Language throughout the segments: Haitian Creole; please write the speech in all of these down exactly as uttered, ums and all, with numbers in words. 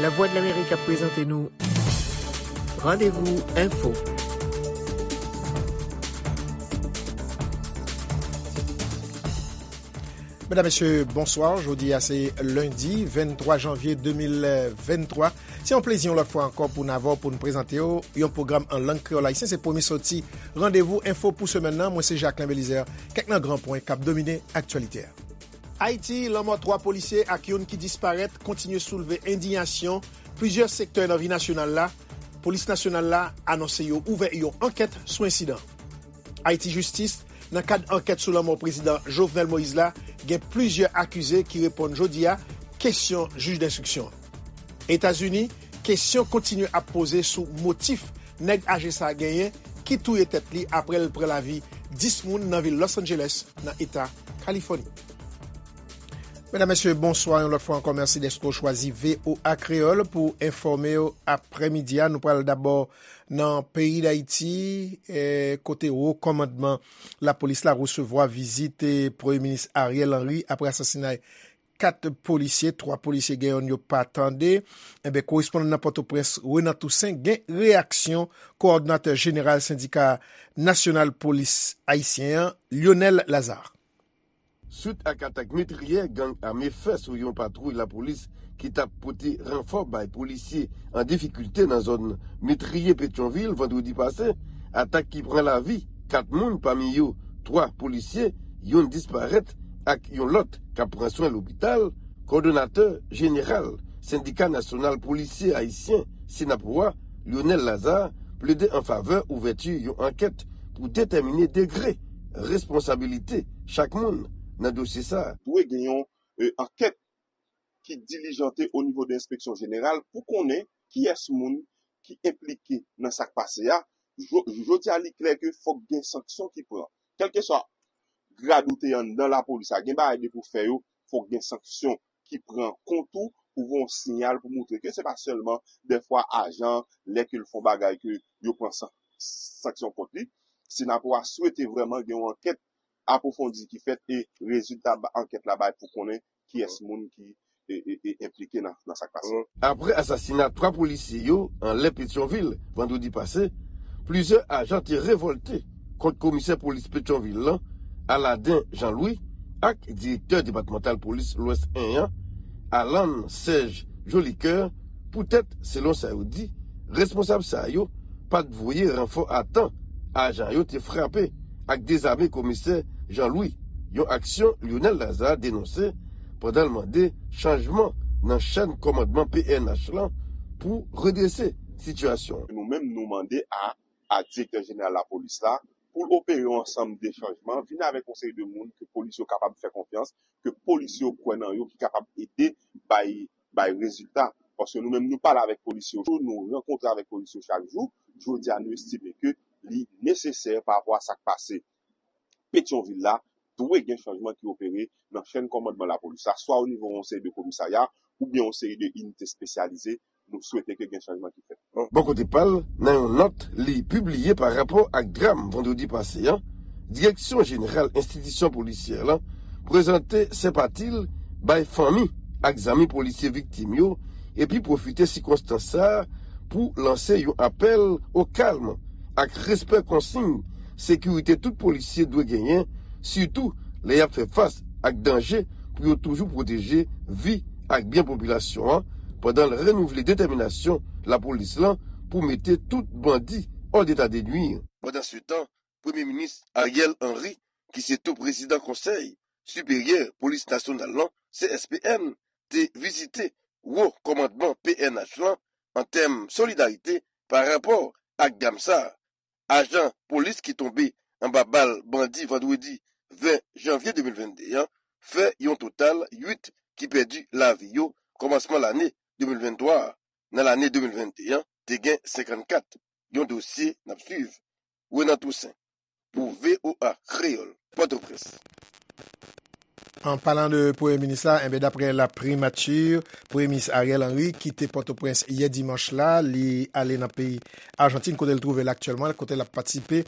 Lavwadlamerik ap prezante nou Randevou Enfo. Medam, mesye, bonswa. Jodi a se lendi venntwa janvye de mil venntwa. Se yon plezi yon lòt fwa ankò pou n avè w pou n prezante w yon pwogram an lang kreyòl ayisyen. Se premye soti Randevou Enfo pou semèn nan. Mwen se Jacquelin Belizaire. Kèk nan gran pwen k ap domine aktyalite a. Ayiti, lanmò twa polisye ak youn ki disparèt kontinye soulve endiyasyon plizyè sektè nan vi nasyonal la. Polis nasyonal la anonse yo ouvè yon ankèt sou ensidan. Ayiti, jistis, nan kad ankèt sou lanmò prezidan Jovenel Moïse la, gen plizyè akize ki reponn jodi a kesyon jij denstriksyon. Etazini, kesyon kontinye ap poze sou motif nèg aje sa a genyen ki touye tèt li apre l pran lavi dis moun nan vil Los Angeles, nan eta Kalifòni. Medam, mesye, bonswa yon lòt fwa ankò. Mèsi dèske w chwazi V O A Kreyòl pou enfòme w aprèmidi a. Nou pral dabò nan peyi Dayiti, eh, kote wo kòmandman lapolis la resevwa vizit, eh, Premye Minis Ariel Henry apre asasinay kat polisye, twa polisye gen yonn yo pa tande. Enben, korespondan nan Pòtoprens, Renan Toussaint, gen reyaksyon kowòdonatè jeneral Sendika Nasyonal Polis Ayisyen an, Lionel Lazarre. Swit ak atak metriyè gang ame fè sou yon patwouy lapolis ki t ap pote ranfò bay polisye an difikilte nan zòn metriyè Petyonvil vandredi pase, atak ki pran lavi kat moun, pami yo twa polisye, youn disparèt ak yon lòt k ap pran swen lopital, kowòdonatè jeneral Sendika Nasyonal Polisye Ayisyen, Synapoha, Lionel Lazarre, plede an favè ouvèti yon ankèt pou detèmine degre responsabilite chak moun nan dosye sa a. Dwe gen yon, e, ankèt ki dilijante o nivo de enspeksyon jeneral pou konnen kiyès moun ki enplike nan sa k pase a. Jo-, jodi a, li klè ke fòk gen sanksyon ki pran. Kèlkeswa grad ou te anndan lapolis la, gen bagay depi w fè yo, fòk gen sanksyon ki pran kont ou pou voye yon siyal pou montre ke se pa sèlman dèfwa ajan, lè ke l fè yon bagay ke yo pran san-, sanksyon kont li. Synapoha swete vrèman gen yon ankèt apwofondi ki fèt e rezilta ba-, ankèt la bay pou konnen kiyès moun ki e, e, e enplike nan, nan sa k pase. Apre asasina twa polisye yo anlè Petyonvil vandredi pase, plizyè ajan te revòlte kont komisè polis Petyonvil lan, Aladin Jean Louis, ak direktè depatmantal polis Lwès en an, Alan Serge Jolicoeur, poutèt, selon sa yo di, responsab sa yo pa t voye ranfò a tan, ajan yo te frape ak dezame komisè Jean Louis, yon aksyon Lionel Lazarre denonse pandan l mande chanjman nan chèn kòmandman P N H lan pou redrese sitiyasyon an. Nou menm, nou mande a, a direktè jeneral lapolis la pou l opere yon ansanm de chanjman, vin avèk yon seri de moun ke polis yo kapab fè konfyans, ke polis yo kwè nan yo, ki kapab ede bay, bay rezilta. Paske nou menm, nou pale avèk polis yo, nou rankontre avèk polis yo chak jou. Jodi a, nou estime ke li nesesè pa rapò a sa k pase Petyonvil la, dwe gen chanjman ki opere nan chèn kòmandman lapolis la, swa o nivo yon seri de komisarya, oubyen yon seri de inite espesyalize. Nou swete ke gen chanjman ki fèt. Bò kote pa l, nan yon nòt li pibliye pa rapò ak dram vandredi pase an, Direksyon Jeneral Enstitisyon Polisyè lan prezante senpati l bay fanmi ak zanmi polisye viktim yo, epi pwofite sikonstans sa a pou lanse yon apèl o kalm ak respè konsiy sekirite tout polisye dwe genyen, sitou lè y ap fè fas ak danje, pou yo toujou pwoteje vi ak byen popilasyon an, pandan l renouvle detèminasyon lapolis lan pou mete tout bandi hors d'état de nuire. Pandansetan, Premye Minis Ariel Henry, ki se tou prezidan Konsèy Siperyè Polis Nasyonal lan, C S P N, te vizite wo kòmandman P N H lan an tèm solidarite pa rapò ak dram sa a. Ajan polis ki tonbe anba bal bandi vandredi ven janvye de mil vennde an fè yon total uit ki pèdi lavi yo kòmansman lane de mil venntwa a. Nan lane de mil vennde an, te gen senkannkat. Yon dosye n ap swiv. Renan Toussaint, pou V O A Kreyòl, Pòtoprens. An palan de Premye Minis la, enben, daprè la primati, Premye Minis Ariel Henry kite Pòtoprens yè dimanch la, li ale nan peyi Ajantin, kote l twouve l aktyèlman, kote l ap patisipe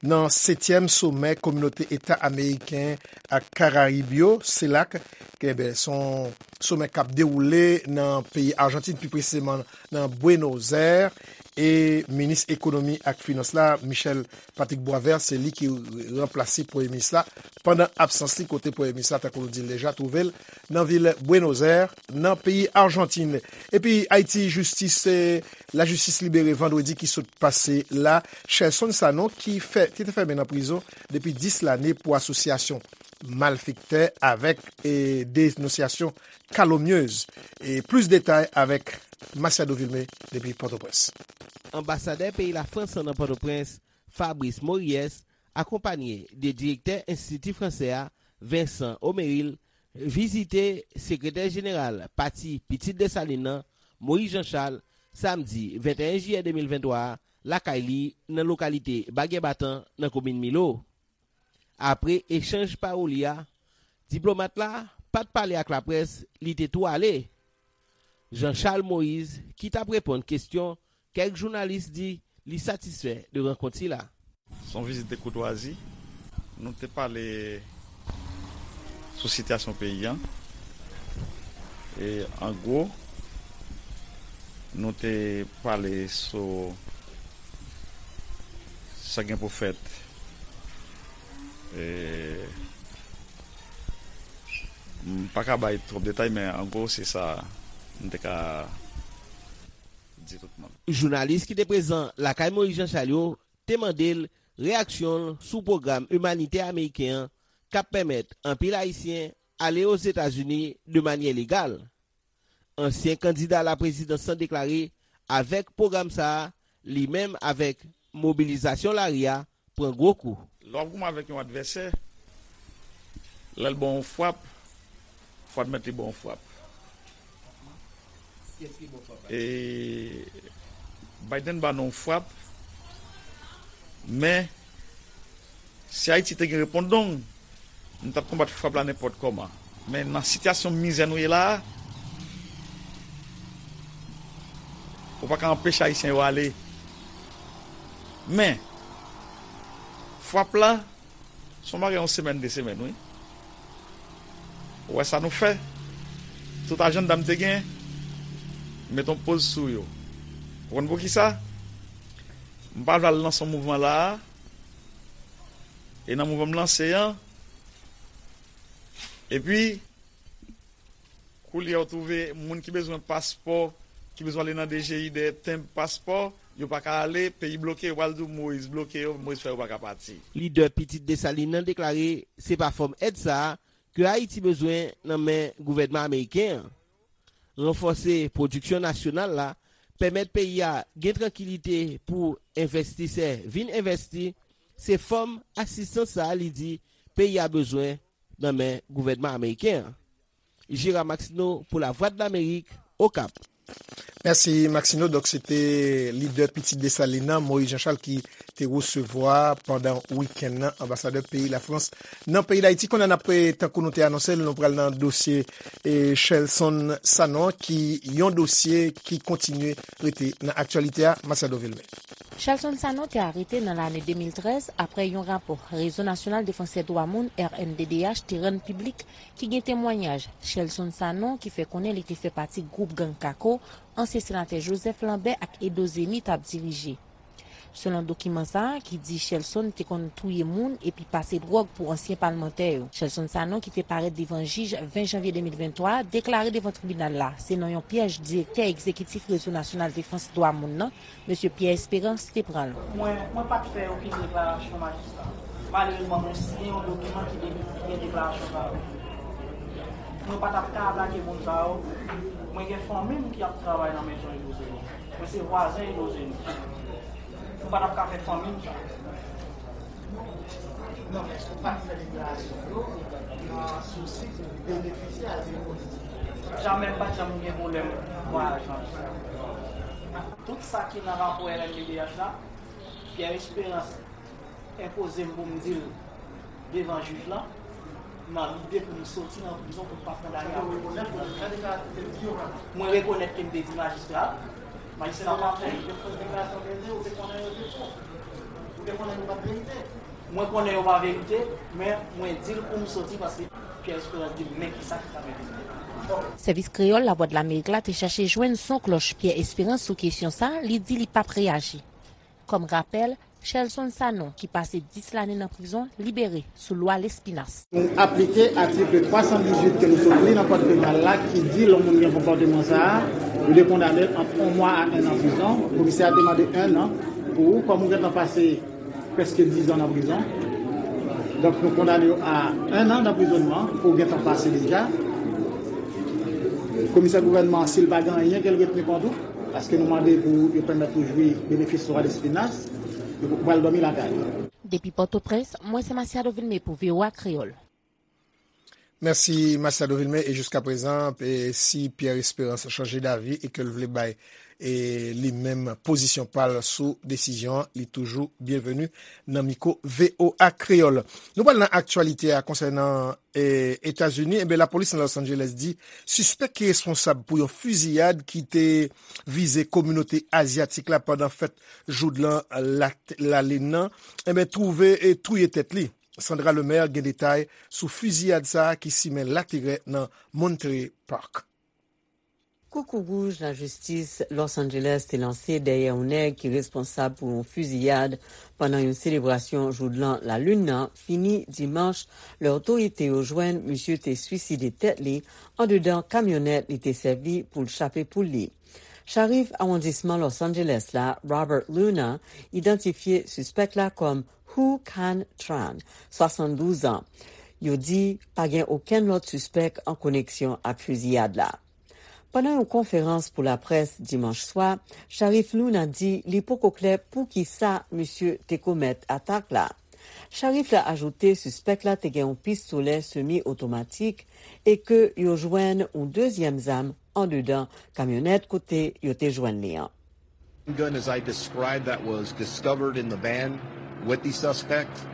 nan setyèm somè Kominote Eta Ameriken ak Karayib yo, CELAC, ke, enben, se yon somè k ap dewoule nan peyi Ajantin, pi presizeman nan Buenos Aires, e minis ekonomi ak finans la, Michel Patrick Boisvert, se li ki ranplase premye minis la pandan absans li, kote premye minis la, tankou nou di l deja, twouve l nan vil Buenos Aires, nan peyi Ajantin. Epi Ayiti, jistis, eh, lajistis libere vandredi ki sot pase la Shelson Sanon, ki fè, ki te fèmen nan prizon depi dis lane pou asosyasyon malfektè avèk, eh, denonsyasyon kalomnyez. E plis detay avèk Masiado Vilmé depi Pòtoprens. Anbasadè peyi Lafrans nan Pòtoprens, Fabrice Mories, akonpanye de direktè Enstiti Fransè a, Vincent Omeril, vizite sekretè jeneral Pati Pitit Desalin nan, Moïse Jean Charles, samdi venteyen jiyè de mil venntwa a, lakay li, nan lokalite Bagyè Batan, nan komin Milo. Apre echanj pawoli a, diplomat la pa t pale ak laprès, li te tou ale. Jean Charles Moïse, ki t ap reponn kesyon kèk jounalis, di li satisfè de rankont sila. Se yon vizit de koutwazi. Nou te pale sou sitiyasyon peyi a. E an gwo, nou te pale sou sa gen pou fèt. E, m pa ka bay twòp detay, men an gwo, se sa m te ka di tout moun. Jounalis ki te prezan lakay Moïse Jean Charles yo te mande l reyaksyon l sou pwogram imanitè ameriken an k ap pèmèt anpil Ayisyen ale Ozetazini de manyè legal. Ansyen kandida laprezidans lan deklare, avèk pwogram sa a, li menm avèk mobilizasyon lari a pran gwo kou. Lè w ap goumen avèk yon advèsè, lè l ba w yon frap, fò w admèt li ba w yon frap. E Biden ba nou yon frap, men si Ayiti te gen repondong, nou t ap konbat frap la nenpòt kòman. Men nan sitiyasyon mizè nou ye la a, ou pa ka anpeche Ayisyen yo ale. Men, frap la, se yon bagay yon semèn, de semèn, wi. Ou wè sa nou fè? Tout ajannda m te gen, m met yon poz sou yo. Ou konn poukisa? M pa vle al lanse yon mouvman la a. E nan mouvman m lanse an, epi, koulye a ou twouve moun ki bezwen paspò, ki bezwen ale nan D G I dèyè tenb paspò, yo pa ka ale, peyi bloke, yo pral di w Moïse bloke yo, Moïse fè yo pa ka pati. Lidè Pitit Desalin nan deklare se pa fòm èd sa a ke Ayiti bezwen nan men gouvènman ameriken an. Ranfòse pwodiksyon nasyonal la, pèmèt peyi a gen trankilite pou envestisè vin envèsti, se fòm asistans sa a li di peyi a bezwen nan men gouvènman ameriken an. Gérard Maxineau pou Lavwadlamerik, Okap. Mèsi, Maxineau. Donk, se te lidè Pitit Desalin nan, Moïse Jean Charles, ki te resevwa pandan wikenn nan anbasadè peyi Lafrans nan peyi Dayiti. Kounye a n ap, tankou nou te anonse l, nou pral nan dosye, e, Shelson Sanon, ki yon dosye ki kontinye rete nan aktyalite a. Masiado Vilmé. Shelson Sanon te arete nan lane de mil trèz apre yon rapò Rezo Nasyonal Defansè Dwa Moun, R N D D H, te rann piblik, ki gen temwayaj Shelson Sanon ki fè konnen li te fè pati gwoup gang Kako, ansyen senatè Joseph Lambert ak Edo Zeni t ap dirije. Selon dokiman sa a, ki di Shelson te konn touye moun epi pase dwòg pou ansyen palmantè yo. Shelson Sanon, ki te parèt devan jij ven janvye de mil venntwa, deklare devan tribinal la, se nan yon pyèj direktè egzekitif Rezo Nasyonal Defans Dwa Moun nan, Mesye Pierre Espérance, te pran l. Mwen, mwen pa t fè okenn deklarasyon majistra. Malerezman, mwen siyen yon dokiman ki de-, ki gen deklarasyon sa yo. Mwen pa t ap ka atake moun sa yo. Mwen gen fanmi m ki ap travay nan mezon Edo Zeni. Mwen se vwazen Edo Zeni. Mwen pa t ap ka fè fanmi m sa. Non, men èske w pa t fè deklarasyon yo nan sousi pou w benefisye azil politik? Jamè, m pa t janm gen pwoblèm vwayaj nan listwa. Tout sa ki nan rapò R N D D H la, Pierre Espérance enpoze m pou m di l devan jij lan. Nan lide pou m soti nan prizon pou m pa kondane a mò. Mwen rekonèt ke m te di majistra a, majistra pa fè. Mwen konnen yo pa verite, men mwen di l pou m soti paske Pierre Esperance di m men kisa ki ta mete m. Sèvis Kreyòl Lavwadlamerik la te chache jwenn son klòch Pierre Esperance sou kesyon sa a, li di li p ap reyaji. Kòm rapèl, Shelson Sanon, ki pase dis lane nan prizon, libere sou lwa Lespinasse. Nou aplike atik twa san dizuit ke nou sot li nan kòd penal la ki di lè yon moun gen konpòteman sa a, yo dwe kondane l ant yon mwa a en an prizon. Komisè a te mande en an pou ou, kòm ou gentan pase prèske diz an nan prizon. Donk, nou kondane w a en an danprizònman ke w gentan pase deja. Komisè gouvènman an, si l pa gen anyen ke l retni kont ou, paske nou mande pou yo pèmèt ou jwi benefis lwa Lespinasse, ou pral dòmi lakay ou. Depi Pòtoprens, mwen se Masiado Vilmé pou V O A Kreyòl. Mèsi Masiado Vilmé. E jiskaprezan, e si Pierre Esperance chanje davi e ke l vle bay e li menm pozisyon pa l sou desizyon an, li toujou byenveni nan mikwo V O A Kreyòl. Nou pral nan aktyalite a konsènan e, Etazini. Enben, lapolis nan Los Angeles di sispèk ki responsab pou yon fiziyad ki te vize kominote azyatik la pandan fèt joudlan lalin nan, enben, twouve e touye tèt li. Sandra Lemaire gen detay sou fiziyad sa a ki simen laterè nan Monterey Park. Koukou wouj lajistis Los Angeles te lanse dèyè yon nèg ki responsab pou yon fiziyad pandan yon selebrasyon joudlan lalin nan fini dimanch, lè otorite yo jwenn misye te swiside tèt li andedan kamyonèt li te sèvi pou l chape poul li. Sharif awondisman Los Angeles la, Robert Luna, idantifye sispèk la kòm Hu Can Tran, swasanndouz an. Yo di pa gen okenn lòt sispèk an koneksyon ak fiziyad la. Pandan yon konferans pou laprès dimanch swa, Sharif Luna di li poko klè poukisa misye te komèt atak la. Sharif la ajoute sispèk la te gen yon pistolè semi otomatik e ke yo jwenn yon dezyèm zam andedan kamyonèt kote yo te jwenn li an. Gun as I described that was discovered in the van with the suspect.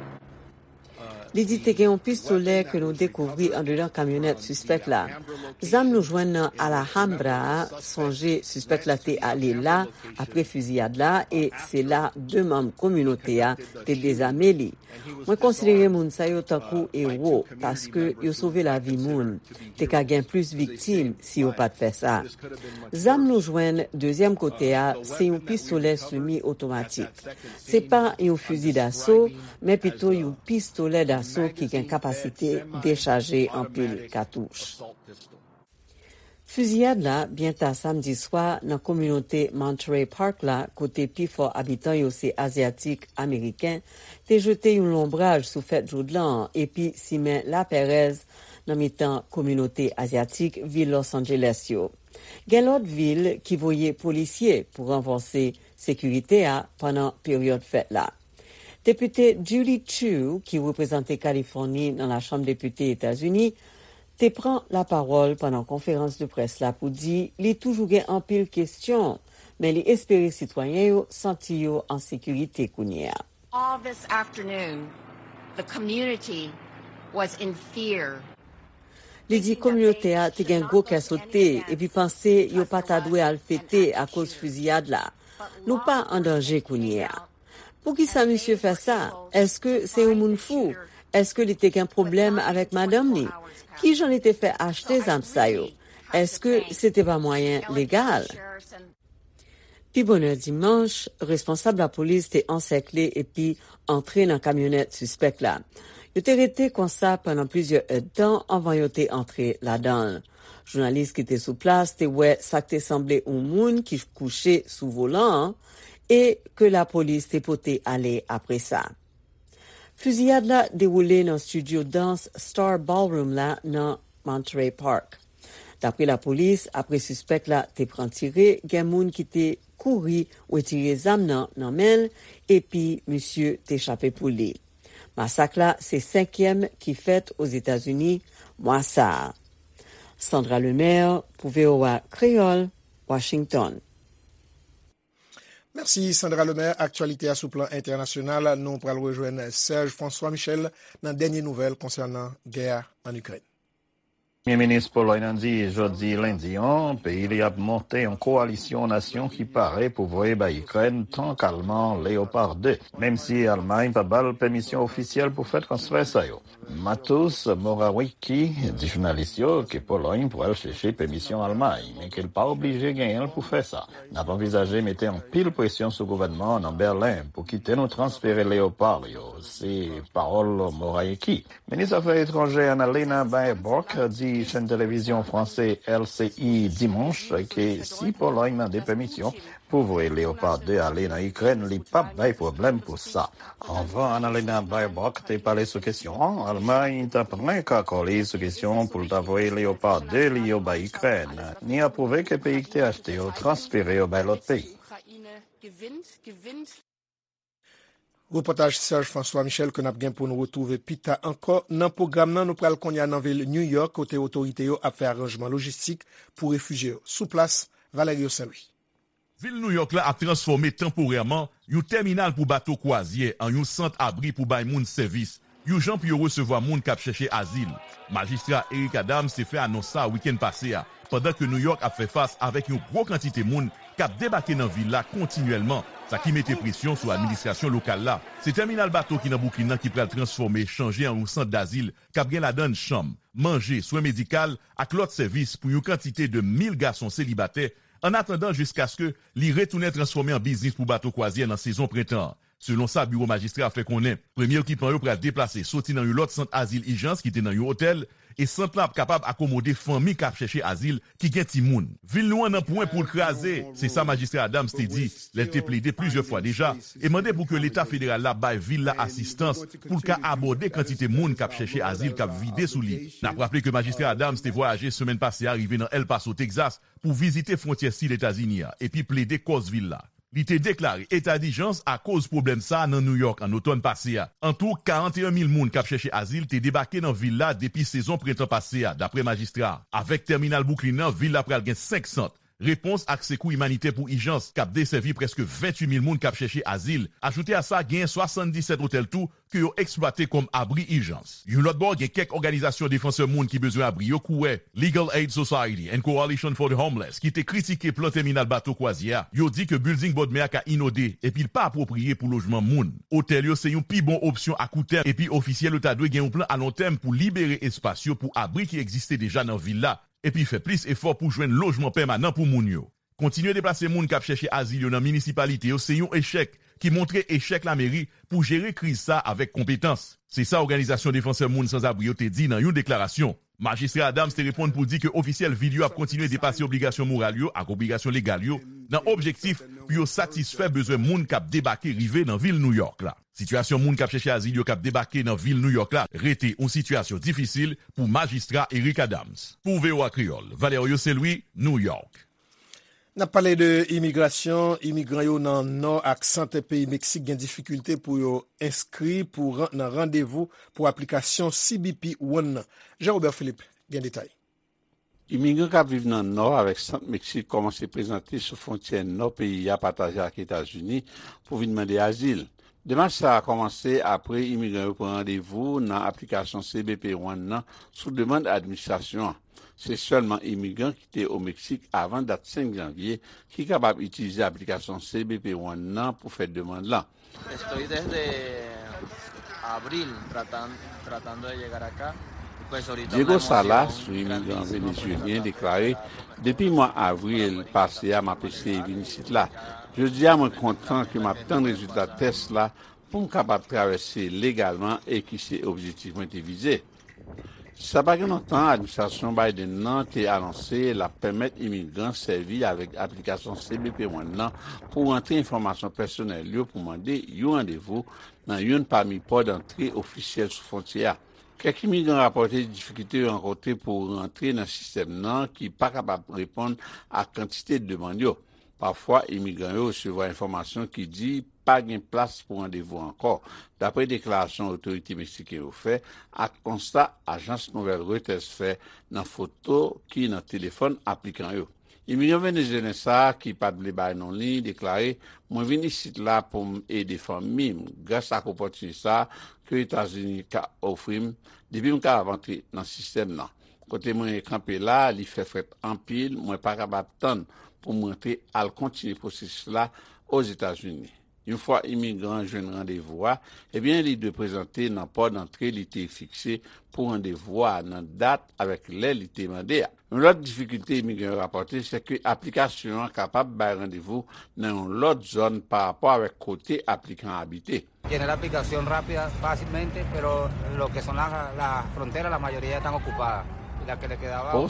Li di te gen yon pistolè ke nou dekouvri andedan kamyonèt sispèk la. Zam nou jwenn nan Alhambra a, sonje sispèk la te ale la apre fiziyad la e se la de manm kominote a te dezame li. Mwen konsidere moun sa yo tankou ewo paske yo sove lavi moun. Te ka gen plis viktim si yo pa t fè sa. Zam nou jwenn dezyèm kote a se yon pistolè semi otomatik. Se pa yon fizi daso, men pito yon pistolè daso ki gen kapasite dechaje anpil katouch. Fiziyad la byen ta samdi swa nan kominote Monterey Park la, kote pifò abitan yo se Azyatik Ameriken, te jete yon lonbraj sou fèt joudlan an epi simen lapèrèz nan mitan kominote Azyatik vil Los Angeles yo. Gen lòt vil ki voye polisye pou ranfòse sekirite a pandan peryòd fèt la. Depite Judy Chu, ki reprezante Kalifòni nan Lachanm Depite Etazini, te pran lapawòl pandan konferans de près la pou di li toujou gen anpil kesyon, men li espere sitwayen yo santi yo an sekirite kounye a. All this afternoon, the community was in fear. Li di kominote a te gen gwo kè sote epi panse yo pa ta dwe al fete akoz fiziyad la. Nou pa an danje kounye a. Poukisa misye fè sa? Èske se yon moun fou? Èske li te gen pwoblèm avèk madanm li? Kijan li te fè achte zam sa yo? Èske se te pa mwayen legal? Pi bonè dimanch, responsab lapolis te ansèkle epi antre nan kamyonèt sispèk la. Yo te rete konsa pandan plizyè èdtan anvan yo te antre ladan l. Jounalis ki te sou plas te wè sa k te sanble yon moun ki kouche sou volan an e ke lapolis te pote ale apre sa. Fiziyad la dewoule nan estidyo dans Star Ballroom la nan Monterey Park. Dapre lapolis, apre sispèk la te pran tire, gen moun ki te kouri retire zam nan nan men l epi misye te chape pou li. Masak la se senkyèm ki fèt Ozetazini mwa sa a. Sandra Lemaire pou V O A Kreyòl, Washington. Mèsi Sandra Lemaire. Aktyalite a sou plan entènasyonal, nou pral rejwenn Serge François Michel nan dènye nouvèl konsènan gè a ann Ikrèn. Premye minis Polòy nan di jodi lendi an, peyi li ap monte yon kowalisyon nasyon ki pare pou voye bay Ikrèn tank alman Leopard de, menm si Almay pa ba l pèmisyon ofisyèl pou fè transfè sa yo. Mateusz Morawiecki di jounalis yo ke Polòy pral chèche pèmisyon Almay, men ke l pa oblije genyen l pou fè sa. N ap anvizaje mete anpil presyon sou gouvènman an nan Bèlen pou kite nou transfere Leopard yo, se pawòl Morawiecki. Minis afè etranjè Annalena Baerbock di chèn televizyon franse L C I dimanch ke si Polòy mande pèmisyon pou voye Leopard de ale nan Ikrèn, li p ap bay pwoblèm pou sa. Anvan Annalena Baerbock te pale sou kesyon an, Almay ta plenk akò li sou kesyon pou l ta voye Leopard de li yo bay Ikrèn, ni apwouve ke peyi ki te achte yo transfere yo bay lòt peyi. Repòtaj Serge François Michel ke n ap gen pou n retwouve pita ankò nan pwogram nan. Nou pral kounye a nan vil New York, kote otorite yo ap fè aranjman lojistik pou refijye yo. Sou plas, Valerio Saint-Louis. Vil Nouyòk la ap transfòme tanporèman yon tèminal pou bato kwazyè an yon sant abri pou bay moun sèvis, yon jan pou yo resevwa moun k ap chèche azil. Majistra Eric Adams te fè anons sa a wikenn pase a, pandan ke Nouyòk ap fè fas avèk yon gwo kantite moun k ap debake nan vil la kontinyèlman, sa ki mete presyon sou administrasyon lokal la. Se tèminal bato ki nan Bwouklin nan ki pral transfòme, chanje an yon sant dazil k ap gen ladan l chanm, manje, swen medikal ak lòt sèvis pou yon kantite de mil gason selibatè, annatandan jiskaske li retounen transfòme an biznis pou bato kwazyè nan sezon prentan an. Selon sa biwo majistra a fè konnen, premye okipan yo pral deplase soti nan yon lòt sant azil ijans ki te nan yon otèl, e sant lan ap kapab akomode fanmi k ap chèche azil ki gen timoun. Vil nou an nan pwen pou l kraze, se sa majistra Adams te di lè l te plede plizyè fwa deja e mande pou ke Leta federal la bay vil la asistans pou l ka abòde kantite moun k ap chèche azil k ap vide sou li. N ap raple ke majistra Adams te vwayaje semèn pase a rive nan El Paso, Texas, pou vizite fwontyè sid Etazini a epi plede kòz vil la. Li te deklare eta dijans akoz pwoblèm sa a nan Nouyòk an otòn pase a. Antou, karanteyen mil moun k ap chèche azil te debake nan vil la depi sezon prentan pase a, dapre majistra a. Avèk tèminal Bwouklin nan, vil la pral gen senk sant repons ak sekou imanitè pou ijans k ap desèvi prèske venntuit mil moun k ap chèche azil. Ajoute a sa, genyen swasanndisèt otèl tou ke yo eksplwate kòm abri ijans. Yon lòt bò, gen kèk òganizasyon defansè moun ki bezwen abri yo kouwè Legal Aid Society and Coalition for the Homeless ki te kritike plan tèminal bato kwazyè a. Yo di ke bilding bòdmè a ka inode epi l pa apwopriye pou lojman moun. Otèl yo se yon pi bon opsyon akoutèm epi ofisyèl yo ta dwe gen yon plan alontèm pou libere espas yo pou abri ki egziste deja nan vil la epi fè plis efò pou jwenn lojman pèmanan pou moun yo. Kontinye deplase moun k ap chèche azil yo nan minisipalite yo se yon echèk ki montre echèk lameri pou jere kriz sa a avèk konpetans. Se sa òganizasyon defansè moun sanzabri yo te di nan yon deklarasyon. Majistra Adams te reponn pou di ke ofisyèl vil yo ap kontinye depase obligasyon moral yo ak obligasyon legal yo nan objektif pou yo satisfè bezwen moun k ap debake rive nan vil Nouyòk la. Sitiyasyon moun k ap chèche azil yo k ap debake nan vil Nouyòk la rete yon sitiyasyon difisil pou majistra Eric Adams. Pou V O A Kreyòl, Valerio Saint-Louis, Nouyòk. N ap pale de imigrasyon. Imigran yo nan nò ak sant peyi Meksik gen difikilte pou yo enskri pou ran- nan randevou pou aplikasyon C B P One nan. Jean Robert Philippe gen detay. Imigran k ap viv nan nò avèk sant Meksik kòmanse prezante sou fwontyè nò peyi a pataje ak Etazini pou vin mande azil. Demach sa a kòmanse apre imigran yo pran randevou nan aplikasyon C B P One nan sou demann administrasyon an. Se sèlman imigran ki te o Meksik avan dat senk janvye ki kapab itilize aplikasyon C B P One nan pou fè demann lan. Estoy desde abril tratan- tratando de llegar acá. Pues ahorita una Diego emoción Salas, yon imigran venezyelyen, deklare, depi mwa avril pase a, m ap eseye vin isit la. Jodi a, mwen kontan ke m ap tann rezilta tès la pou m kapab travèse legalman e ki se objektif mwen te vize. Sa pa gen lontan, administrasyon Biden nan te anonse l ap pèmèt imigran sèvi avèk aplikasyon C B P One nan pou rantre enfòmasyon pèsonèl yo pou mande yon randevou nan youn pami pò dantre ofisyèl sou fwontyè a. Kèk imigran rapòte difikilte yo rankontre pou rantre nan sistèm nan ki pa kapab reponn ak kantite demann yo. Pafwa, imigran yo resevwa enfòmasyon ki di pa gen plas pou randevou ankò, dapre deklarasyon otorite meksiken yo fè ak konsta ajans nouvèl Reuters fè nan foto ki nan telefòn aplikan yo. Imigran venezuelyen sa a, ki pa t vle bay non li, deklare, "Mwen vin isit la pou m ede fanmi m, gras ak opòtinite sa a ke Etazini ka ofri m depi m kapab antre nan sistèm nan. Kote mwen kanpe la, li fè frèt anpil, mwen pa kapab tann pou m rantre al kontinye pwosesis la Ozetazini." Yon fwa imigran an jwenn randevou a, ebyen, li dwe prezante nan pò dantre li te fikse pou randevou a nan dat avèk lè li te mande a. Yon lòt difikilte imigran yo rapòte, se ke aplikasyon an kapab bay randevou nan yon lòt zòn pa rapò avèk kote aplikan an abite. Llené la aplicación rápida, fácilmente, pero lo que son la, la frontera, la mayoría están ocupadas. Y la que le quedaba un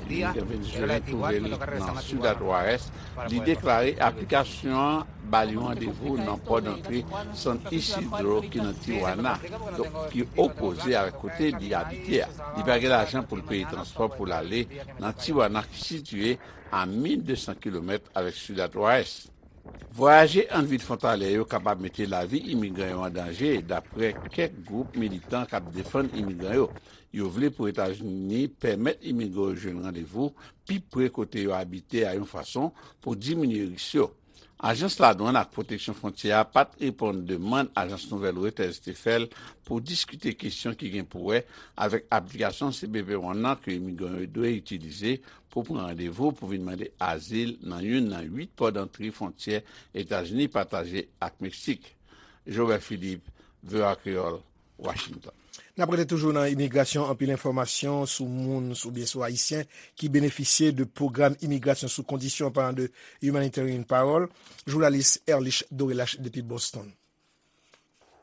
día era la de Tijuana, me toca regresarme a Tijuana para poder, pues, aplicar. Pose wèl ta, imigran venezuelyen twouve l nan Ciudad Juárez, li deklare aplikasyon an ba li yon randevou nan pò dantre San Isidro ki nan Tijuana, donk ki opoze avèk kote li abite a. Li pa gen lajan pou l peye transpò pou l ale nan Tijuana ki sitiye a mil de san kilomèt avèk Ciudad Juárez. Vwayaje ant vil fwontalyè yo kapab mete lavi imigran yo an danje, dapre kèk gwoup militan k ap defann imigran yo. Yo vle pou Etazini pèmèt imigran yo jwenn randevou pi pre kote yo abite a yon fason pou diminye risk yo. Ajans Ladwann ak Pwoteksyon Fwontyè a pa t reponn demann ajans nouvèl Reuters te fè l pou diskite kesyon ki gen pou wè avèk aplikasyon C B P One nan ke imigran yo dwe itilize pou pran randevou pou vin mande azil nan youn nan uit pò dantre fwontyè Etazini pataje ak Meksik. Jobert Philippe, V O A Kreyòl, Washington. N ap rete toujou nan imigrasyon, anpil enfòmasyon sou moun, sou, oubyen sou Ayisyen ki benefisye de pwogram imigrasyon sou kondisyon, an palan de Humanitarian Parole. Jounalis Erlich Dorelache depi Boston.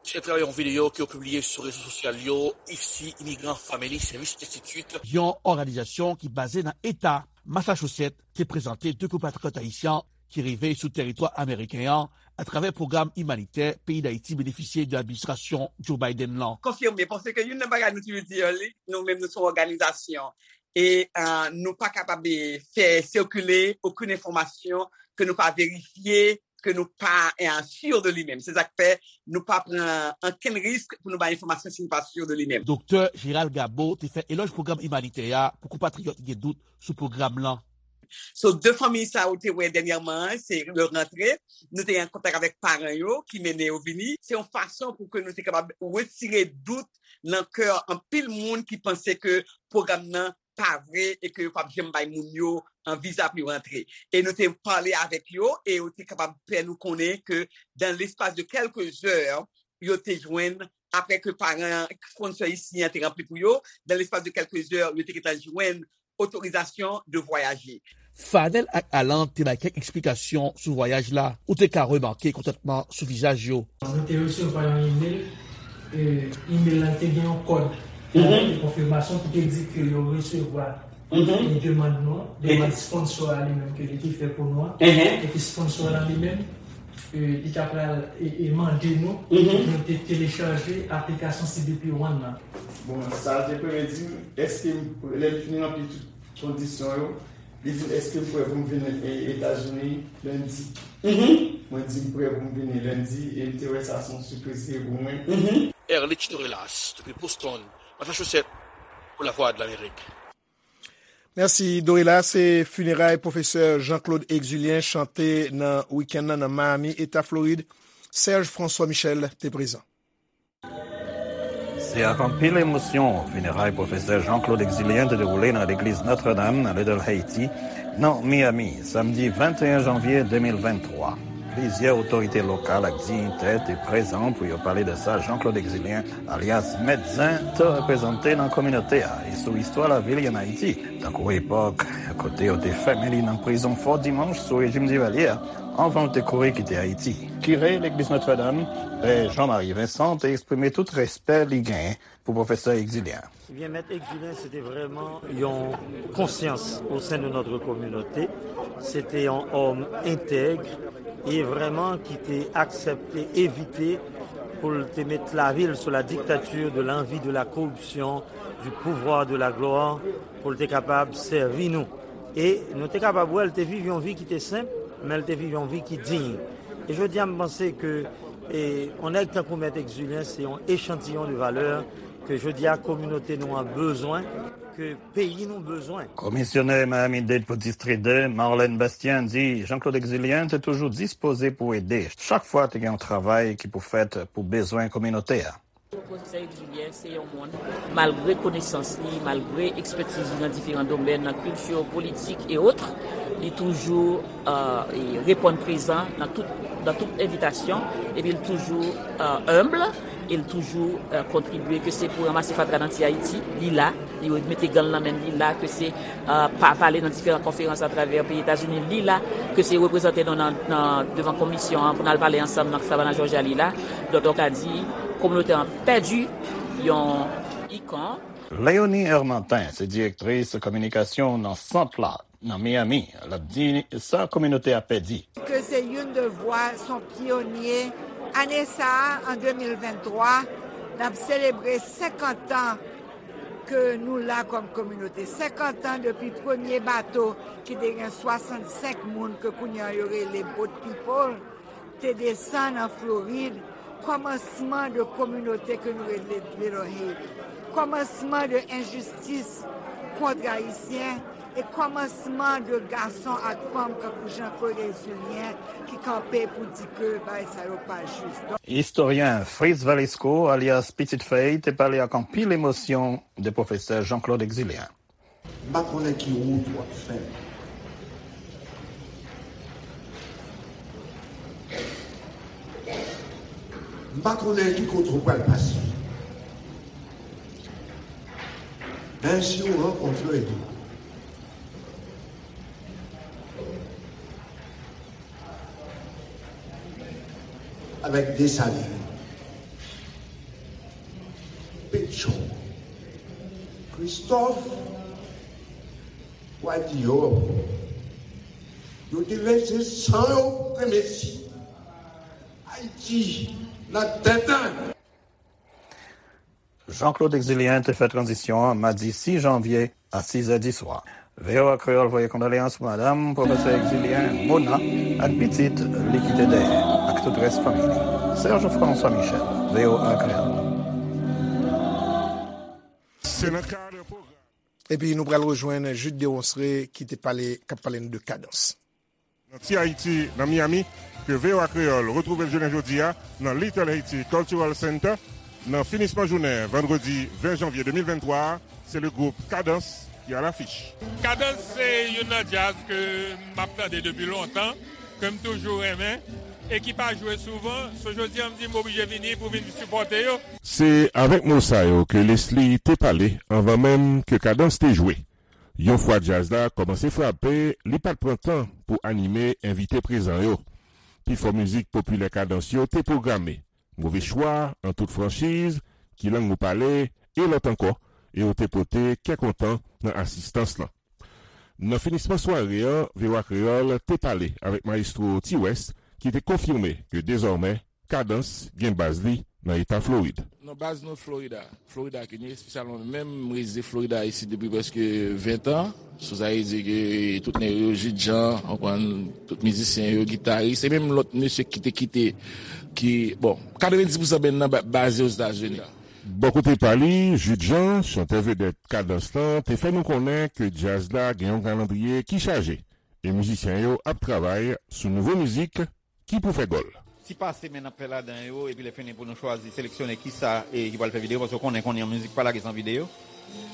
Se atravè yon videyo ke yo pibliye sou rezo sosyal yo, I F C Immigrant Family Service Institute, yon òganizasyon ki baze nan eta Massachusetts, te prezante de konpatriyòt ayisyen ki rive sou tèritwa ameriken an atravè pwogram imanitè peyi Dayiti benefisye de administrasyon Joe Biden lan. Konfime, paske youn nan bagay nou toujou di, li, nou menm nou se yon òganizasyon. E, euh, nou pa kapab, eh, fè sikile okenn enfòmasyon ke nou pa verifye, ke nou pa, eh, si de li menm. Se sa k fè nou pa pran ankenn risk pou nou bay enfòmasyon si nou pa si de li menm. Doktè Gérald Gabo te fè elòj pwogram imanitè a pou konpatriyòt ki gen dout sou pwogram lan. So, de fanmi sa ou te wè dènyèman an, se yo rantre, nou te an kontak avèk paran yo ki mennen yo vini. Se yon fason pou ke nou te kapab retire dout nan kè anpil moun ki panse ke pwogram nan pa vre e ke yo p ap janm bay moun yo an viza pou yo rantre. E nou te pale avèk yo e yo te kapab fè nou konnen ke dans l'espace de quelques heures, yo te jwenn, apre ke paran sponsor isi an te ranpli pou yo, dans l'espace de quelques heures, yo te gentan jwenn otorizasyon de voyager. Fanel ak Alan te bay kèk eksplikasyon sou vwayaj la. Ou te ka remake kontantman sou vizaj yo. Nou te resevwa yon imèl. E, imèl la te gen yon kòd. Mhm. Yon konfimasyon ki te di ke yo resevwa, mhm, e, demann nou an, demann sponsor a li menm ke li te fè pou nou an. Mhm. E ke sponsor la li menm, e, li ta pral, e, e, mande nou, mhm, pou nou te telechaje aplikasyon C B P One nan. Bon, sa te premye di m, èske m, lè m fin ranpli tout kondisyon yo, li di m, "Èske m prè pou m vin, e, Etazini lendi?" Mhm. Mwen di m prè pou m vini lendi, e m te wè sa se yon sipriz li ye pou mwen. Mhm. Erlich Dorelas, depi Boston, Massachusetts, pou Lavwadlamerik. Mèsi, Dorelas. Se fineray pwofesè Jean-Claude Exulien chante nan wikenn nan, nan Miami, Eta Florid. Serge François Michel te prezan. Se ak anpil emosyon fineray pwofesè Jean-Claude Exulien te dewoule nan legliz Notre Dame nan Little Haiti, nan Miami, samdi venteyen janvye de mil venntwa. Plizyè otorite lokal ak diyitè te prezan pou yo pale de sa Jean-Claude Exulien, alyas Mèt Zen, te reprezante nan kominote a e sou istwa lavi li ann Ayiti, tankou epòk kote yo te fèmen li nan prizon Fò Dimanch sou rejim Divalye a, anvan l te kouri kite Ayiti. Kire legliz Notre Dame, Pè Jean-Marie Vincent, te eksprime tout respè li genyen pou pwofesè Exulien. Ebyen, Mèt Exulien, se te vrèman yon konsyans au sein de notre communauté. Se te yon òm entèg e vrèman ki te aksepte evite pou l te met lavi l sou la dictature de l'envie, de la corruption, du pouvoir, de la gloire, pou l te kapab sèvi nou. E nou te kapab wè l te viv yon vi ki te senp, men l te viv yon vi ki diy. E jodi a, m panse ke, e, yon nèg tankou Mèt Exulien, se yon echantiyon de valè Ke jodi a kominote nou an bezwen, ke peyi nou bezwen. Komisyonè Miami-Dade pou Distri de, Marlène Bastien, di Jean-Claude Exulien te toujou dispoze pou ede chak fwa te gen yon travay ki pou fèt pou bezwen kominote a. Pwofesè Exulien se yon moun, malgre konesans li, malgre ekspètiz li nan diferan domèn, nan kilti, politik e otre, li toujou reponn prezan nan tout nan tout envitasyon, epi l toujou enb, e l toujou kontribye, ke se pou ranmase fatra nan Ti Ayiti, li la, li mete gan l nan men l, li la, ke se pa pale nan diferan konferans atravè peyi Etazini, li la, ke se reprezante nou nan devan komisyon an pou n al pale ansanm nan Savannah, Georgia, li la. Donk, ou ka di, kominote an pèdi yon ikon. Léonie Hermantin se direktris kominikasyon nan sant la nan Miami. L ap di sa kominote a pèdi. Ke se youn de vwa, s on pyonye. Ane sa a, an de mil venntwa, n ap selebre senkant an ke nou la kòm kominote. Senkant an depi premye bato ki te gen swasannsenk moun ke kounye a yo rele Boat People te desann an Florid, kòmansman de kominote ke nou rele Little Haiti, kòmansman de enjistis kont Ayisyen e kòmansman de gason ak fanm kankou Jean Claude Exulien ki kanpe pou di ke bagay sa yo pa jis. Istoryen Fritz Valesco, alyas Pitit Fèy, te pale ak anpil emosyon de pwofesè Jean Claude Exulien. M pa konnen ki wout w ap fè. M pa konnen ki kote w pral pase. Men si w rankontre li avèk Desalin, Petyon, Kristòf, w a di yo, yo te vèse san yo pou ke Mesi Ayiti nan tenten. Jean Claude Exulien te fè tranzisyon an madi sis janvye a sizè di swa. VOA Kreyòl voye kondoleyans pou madanm pwofesè Exulien, Mona, ak pitit li kite dèyè, ak tout rès fanmi li. Serge François Michel, VOA Kreyòl. Se nan kad pwogram. Epi nou pral rejwenn Jude Deronceray ki te pale, k ap pale n de Kadans. Nan Ti Ayiti, nan Miami, ke VOA Kreyòl retwouve l jounen jodi a nan Little Haiti Cultural Center. Nan finisman jounen vandredi ven janvye de mil venntwa a, se le gwoup Kadans ki alafich. Kadans se youn nan djaz ke m ap tande depi lontan, ke m toujou renmen e ki pa jwe souvan. So jodi a m di m oblije vini pou vin sipòte yo. Se avèk mo sa yo ke Leslie te pale anvan menm ke Kadans te jwe. Yon fwa djaz la kòmanse frape, li pa t pran tan pou anime envite prezan yo. Pifò mizik popilè Kadans yo te pwograme. Move chwa, an tout franchiz, Ki lang ou pale, e lòt ankò, e yo te pote kè kontan nan asistans lan. Nan finisman sware an, VOA Kreyòl te pale avèk mayestwo T-West ki te konfime ke dezòmè Kadans gen baz li nan eta Florid. Non, baz nou Florida. Florida ki nou espesyalman menm, m rezize Florida isit depi prèske ven tan. So sa vle di ke tout nèg yo, Jude Jean, w konprann, tout mizisyen yo, gitaris, e menm lòt mesye ki te kite, ki, bon, katrevenndis pousan band nan ba- baze Ozetazini. Bò kote pa li, Jude Jean, chantè vedèt Kadans lan, te fè nou konnen ke djaz la gen yon kalandriye ki chaje, e mizisyen yo ap travay sou nouvo mizik ki pou fè gòl. Ti pase men n ap fè ladan yo, epi lè fini pou nou chwazi, seleksyone kisa e ki pral fè videyo, paske w konnen kounye a mizik pa lage san videyo.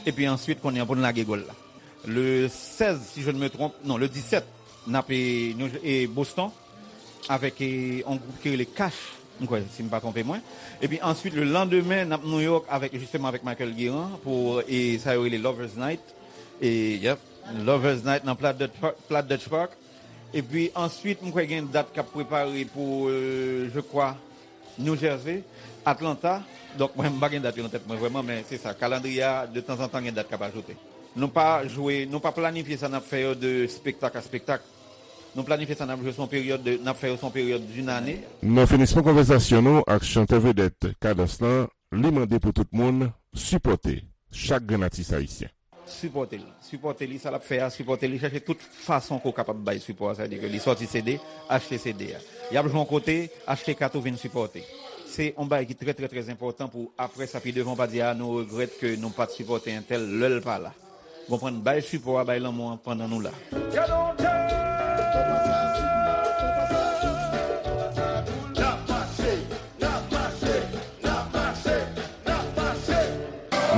Epi answit kounye a pou n lage gòl la. Le sèz, si je ne me trompe, non, le disèt, n ap e, nou, e Boston, avèk e, yon gwoup ki rele Cash, m kwè, si m pa twonpe mwen. Epi answit, le landemen, n ap New York avèk, jisteman, avèk Michael Guérin pou e, sa yo rele Lovers Night. E, yep, Lovers Night nan Platt Dutch Park. Epi answit, m kwè gen dat k ap prepare pou, euh, je crois, New Jersey, Atlanta. Donk, mwen, m pa gen dat yo nan tèt mwen vrèman, men se sa. Kalandriye a, de tanzantan, gen dat k ap ajoute. Nou pa jwe, nou pa planifye sa n ap fè yo de spektak a spektak. Nou planifye sa n ap jwe sou yon peryòd de, n ap fè yo sou yon peryòd d'une année. Nan finisman konvèsasyon nou ak chantè vedèt Kadans lan, li mande pou tout moun sipòte chak grenn atis ayisyen. Sipòte l. Sipòte li, sa l ap fè a, sipòte li. Chèche tout fason ke w kapab bay sipò a. Sa vle di ke li sòti CD, achte CD a. Y ap jwe yon kote, achte kat ou vin sipòte. Se yon bagay ki trè, trè, trè enpòtan pou apre sa, pi devan, w pa di, "A, nou regrèt ke nou pa t sipòte entèl lè l pa la." Ou konprann? Bay sipò a, bay lanmou an pandan nou la.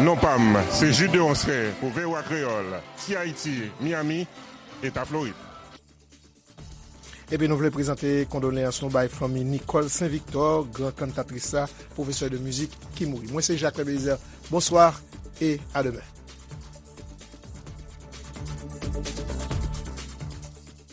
Non pa m, se Jude Deronceray pou V O A Kreyòl, Ti Ayiti, Miami, Eta Florid. Epi nou vle prezante kondoleyans nou bay fanmi Nicole Saint Victor, gran kantatris la, pwofesè de mizik ki mouri. Mwen se Jacques Belizaire. Bonswa e a demen.